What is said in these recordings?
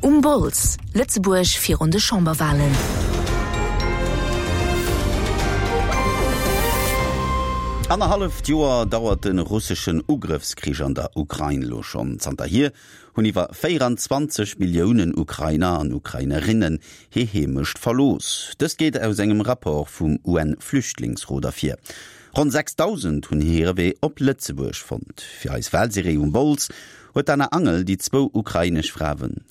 Um Bols, Lëtzebuerg virun de Chamberwalen. Annerhalleft Joer dauert de russeschen Ugrëffskrich an der Ukrain elo schonn. Zanterhier hunn iwwer 24 Milliounen Ukrainer an Ukrainerinnen hir Heemecht verlooss. Dëst geet aus engem Rapport vum UN-Flüchtlingsrot ervir. Ronn 6.000 hunn hire Wee op Lëtzebuerg fonnt. Fir eis Walserie Um Bols huet d'Anna Angel déi zwou ukrainesch Fraen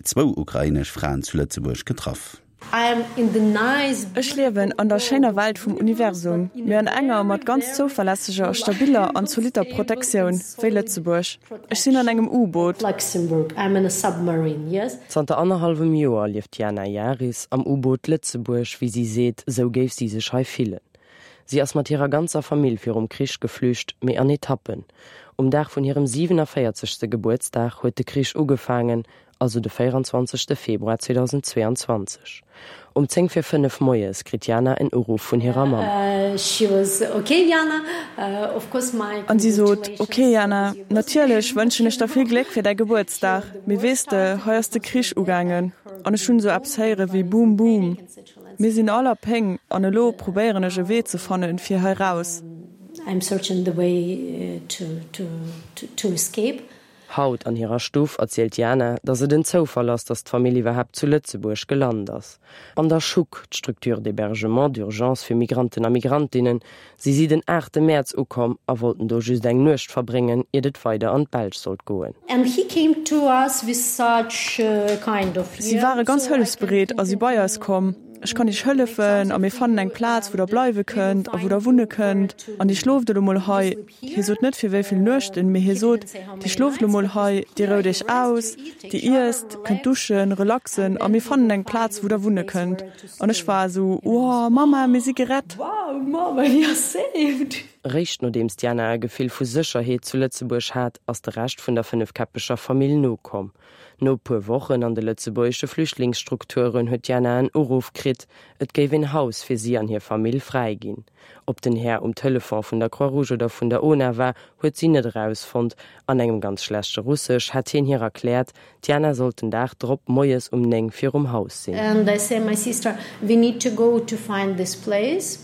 zwou ukrainesch Fraen zu Lëtzebuerg getraff. Ech liewen an der schéiner Welt vum Universum, mee an enger mat ganz zouverlässeger, stabiller an zolitter Protektioun, wéi Lëtzebuerg. Ech sinn an engem U-Boot. Zanter annerhallwem Joer lieft d'Jana Jaris am U-Boot Lëtzebuerg. Wéi si seet, esou géif si sech hei fillen. Si ass mat hirer ganzer Famill virum Krich geflücht, mee an Etappen. Um Dag vun hirem 47. Gebuertsdag huet de Krich ugefaangen, also de 24. Februar 2022. Um 10 vir 5 moies kritt d'Jana en Uruff vun hirer Mamm. An si sot, Ok Jana, natierlech wënschen ech der vill Gléck fir däi Gebuertsdag, mee weess de, hei ass de Krich ugaangen an ech hunn esou eppes héiere wéi Boom Boom. Mir sinn all a Péng an elo probéieren ech e Wee ze fannen, fir hei raus. Haut an hirer Stuff erzielt d'Jana, datt et en Zoufall ass, datt d'Famill iwwerhaapt zu Lëtzebuerg gelant ass. An der Schuck, d'Structure d'hébergement d'urgence fir Migranten a Migrantinnen, si si den aachte Mäerz ukomm a wollten do just eng Nuecht verbréngen, iert et weider an d'Belsch sollt goen. Si ware ganz hëllefsbereet a si bei eis komm. Ech kann iech hëllefen a mir fannen eng Plaz, wou der bleiwe kënnt a wou der wunne kënnt. An dir schlooft elo mol hei. Hie sot net fir wéi vill Nuechten, mee hie sot, Dir schlooft elo mol hei, dir rout iech aus, dir iesst, kënnt duschen, relaxen a mir fannen eng Plaz, wou der wunne kënnt. An ech war esou, Wow, Mamma, mir si gerett! Wow, Mamma, we are saved! Réischt nodeems d'Jana e Gefill vu Sécherheet zu Lëtzebuerg hat, ass de Rescht vun der fënnefkäppeger Famill nokomm. No e puer Wochen an de lëtzebuergesche Flüchtlingsstrukturen huet d'Jana en Uruff kritt, et géif een Haus fir si an hir Famill fräi ginn. Ob den Här um Telefon vun der Croix-Rouge oder vun der ona war, huet si net erausfonnt. An engem ganz schlechte Russesch hätt hien hir erkläert, D'Jana sollt den Dag drop moies um 9 virum Haus sinn. An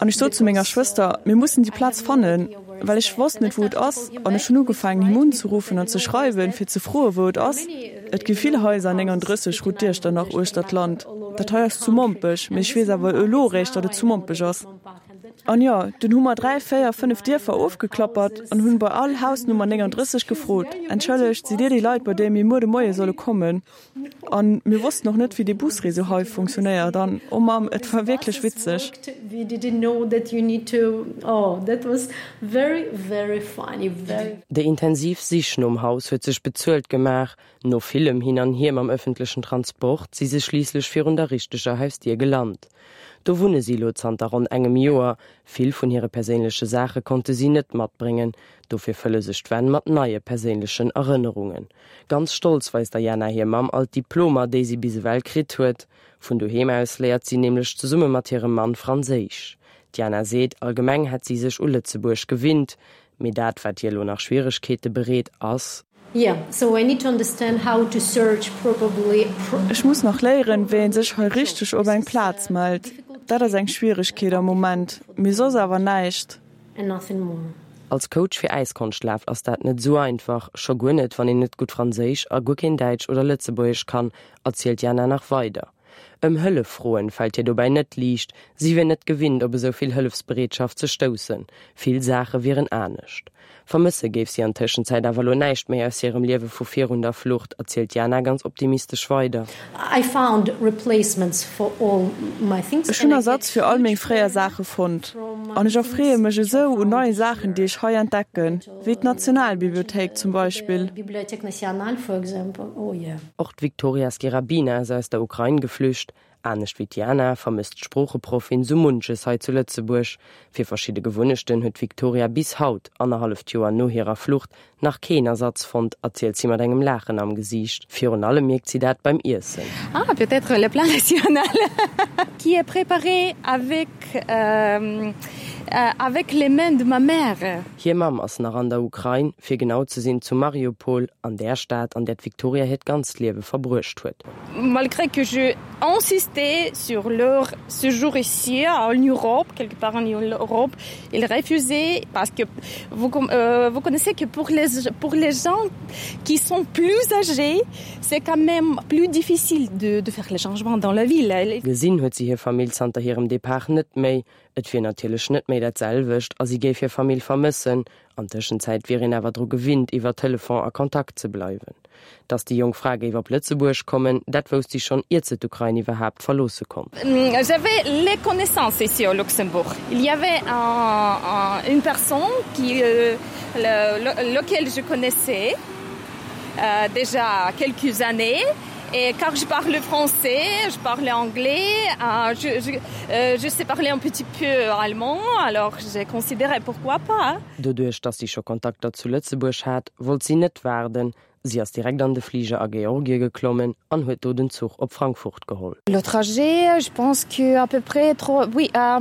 ech sot zu menger Schwëster, Mir mussen déi Plaz fannen, well ech wosst net, wou et ass. An ech hunn ugefaangen, him unzeruffen an ze schreiwen, fir ze froen, wou et ass. Et gi vill Haiser, 39 Route d'Iechternach uechter d'Land. Dat hei ass zu Mompech, mee ech weess awer elo eréischt, datt et zu Mompech ass. An jo, dunn hu mer dräi, véier, fënnef Dierfer ofgeklappert an hunn bei all Hausnummer 39 gefrot, Entschëllegt, sidd Dir déi Leit, bei déi mir muer de Moie solle kommen? An mir wossten och net, wéi dee Busréseau hei funktionéiert. An, oh Mamm, et war wierklech witzeg. Déi intensiv Sich nom Haus huet sech bezuelt gemaach. No villem Hin an Hier mam ëffentlechen Transport si se schliisslech virun der richteger Hausdier gelant. Do wunne si elo zanter ronn engem Joer. Vill vun hire perséinleche Saache konnte si net matbréngen, dofir fëlle sech d'Wänn mat neie perséinlechen Erënnerungen. Ganz stolz weist der Jana hir Mamm all d'Diplomer, déi si bis ewell kritt huet. Vun doheem aus léiert si nämlech zesumme mat hirem Mann Franséisch. D'Jana seet, allgemeng hätt si sech u Lëtzebuerg gewinnt, Mee dat, wat hir elo nach Schwieregkeete bereet, ass. Ech muss nach léieren, wéi ee sech hei richteg op eng Plaz mellt. Dat ass eng Schwieregkeet am Moment, mee soss awer näischt. Als Coach fir Äiskonschtlaf ass dat net esou einfach, scho guer net, wann een net gutt Franséisch a guer keen Däitsch oder Lëtzebuergesch kann, erzielt d'Jana nach weider. Ëm Hëllef froen fält hir dobäi net liicht, si wier net gewinnt op esou vill Hëllefsbereetschaft ze stoussen, vill Saache wieren anescht. Vermësse géif si an Tëschenzäit awer elo näischt méi aus hirem Liewe vu virun der Flucht, erzielt d'Jana ganz optimistesch weider. Ech hunn Ersatz fir all meng fréier Saache fonnt an ech erfreeë mech esou un neie Saachen, déi ech hei entdecken, wéi d'Nationalbibliothéik zum Beispill. Och d'Viktoria Skirabina ass aus der Ukrain geflücht. Anescht wéi d'Jana vermësst d'Sproocheproffin sou munches hei zu Lëtzebuerg. Fir verschidde Gewunnechten huet d'Viktoria bis haut, annerhalleft Joer no hirer Flucht, nach keen Ersatz fonnt, erzielt si mat engem Laachen am Gesiicht. Virun allem mierkt si dat beim Iessen. Ah, peut-être le plat national qui est préparé avec. Avec les mains de ma mère. Hir Mamm ass nach an der Ukrain, fir genau ze sinn zu Mariupol, an där Stad, an där d'Viktoria hiert ganzt Liewe verbruecht huet. Malgré que je insistais sur leur séjour ici en Europe, quelque part en Europe, ils refusaient parce que vous, euh, vous connaissez que pour les, pour les gens qui sont plus âgés, c'est quand même plus difficile de, de faire les changements dans la ville. Gesinn huet si hir Famill zanter hirem Depart net méi. Et wier natierlech net méi dat selwecht a si géif hir Famill vermëssen. An Tëschenzäit wier een awer dru gewinnt, iwwer Telefon a Kontakt ze bleiwen. Datt déi jonk Fra géif op Lëtzebuerg kommen, dat wousst si schonn, iert se d'Ukrain iwwerhaapt verloosse konnt. J'avais les connaissances ici au Luxembourg. Il y avait un, une personne qui, euh, le, lequel je connaissais euh, déjà quelques années Et car je parle français, je parle anglais, euh, je, je, euh, je sais parler un petit peu allemand, alors j'ai considéré pourquoi pas. Doduerch, dass si scho Kontakter zu Lëtzebuerg hat, wollt si net waarden. Si ass direkt an de Fliger a Georgie geklommen an huet do den Zuch op Frankfurt geholl. Le trajet, je pense que à peu près trois, oui, euh,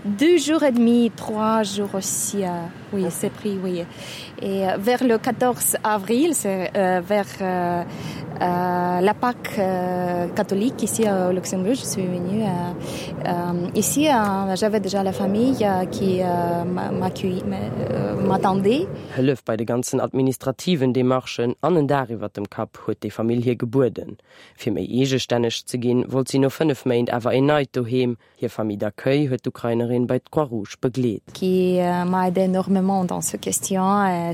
deux jours et demi, trois jours aussi euh, oui, c'est pris oui. Et euh, vers le 14 avril, c'est euh, vers euh, euh, la Pâque euh, catholique ici au Luxembourg, je suis venue euh, euh, ici euh, j'avais déjà la famille euh, qui euh, m'attendait. Euh, Hëllef bei de ganzen administrativen Demarchen an en Daach iwwer dem Kapp huet déi Famill hir gebueden. Fir méi eegestänneg ze ginn, wollt si no 5 Méint awer een neit Doheem. Hir Famille d'accueil huet d'Ukrainerin bei d'Croix-Rouge begleet. Qui euh, m'a aidé énormément dans ce question. Euh,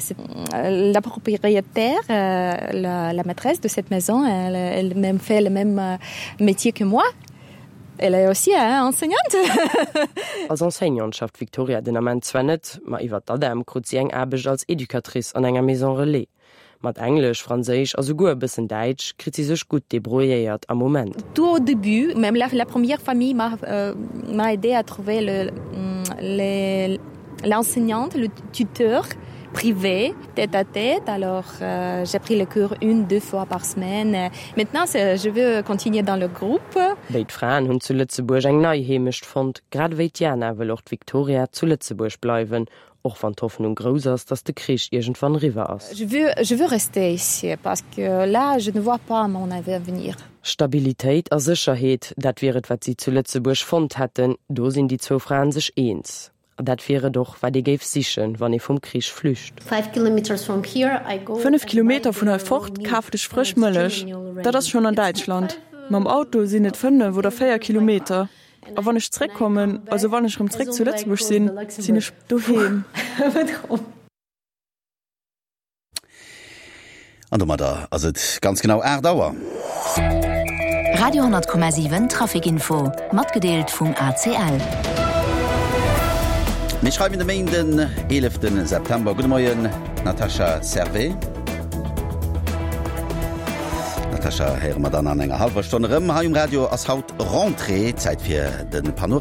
euh, la propriétaire, la, la maîtresse de cette maison, elle, elle même fait le même métier que moi. Elle est aussi hein, enseignante. Als Enseignante schafft d'Viktoria den Ament zwar net, ma iwwer d'ADEM krut si eng Aarbecht als Educatrice an enger Maison Relais. Mat Englesch, Franséisch a souguer e bëssen Däitsch kritt si sech gutt debrouilléiert am Moment. Tout au début, même la, la première famille m'a euh, m'a aidé à trouver le, les, l'enseignante, le tuteur privé, tête à tête. Alors euh, j'ai pris le cours une, deux fois par semaine. Maintenant, je veux continuer dans le groupe. Béid Fraen hunn zu Lëtzebuerg eng nei Heemecht fonnt. Grad ewéi d'Jana wëll och d'Viktoria zu Lëtzebuerg bleiwen, Och wann d'Hoffnung grouss ass, datt de Krich iergendwann eriwwer ass. Je veux, je veux rester ici parce que là, je ne vois pas mon avenir. Stabilitéit a Sécherheet, dat wier et, wat si zu Lëtzebuerg fonnt hätten. Do sinn déi zwou Fraen sech eens. A dat wier et och, wat ee géif sichen, wann ee vum Krich flücht. 5 Kilometer vun hei fort kafen ech frësch Mëllech. Dat ass schonn an Däitschland. Mam Auto sinn et 5 oder 4 Kilometer. A wann ech zréckkommen, also wann ech erëm zréck zu Lëtzebuerg sinn, sinn ech doheem. An domadder ass et ganz genau 8 Auer. Radio 10,7 Traficinfo, matgedeelt vum ACL. Mir schreiwen de Méinden, 11 September. Gudde Moien, Natasha Servais. Natasha héiere mer dann an enger hallwer Stonn erëm. Hei um Radio ass haut Rentrée, Zäit fir de Panorama.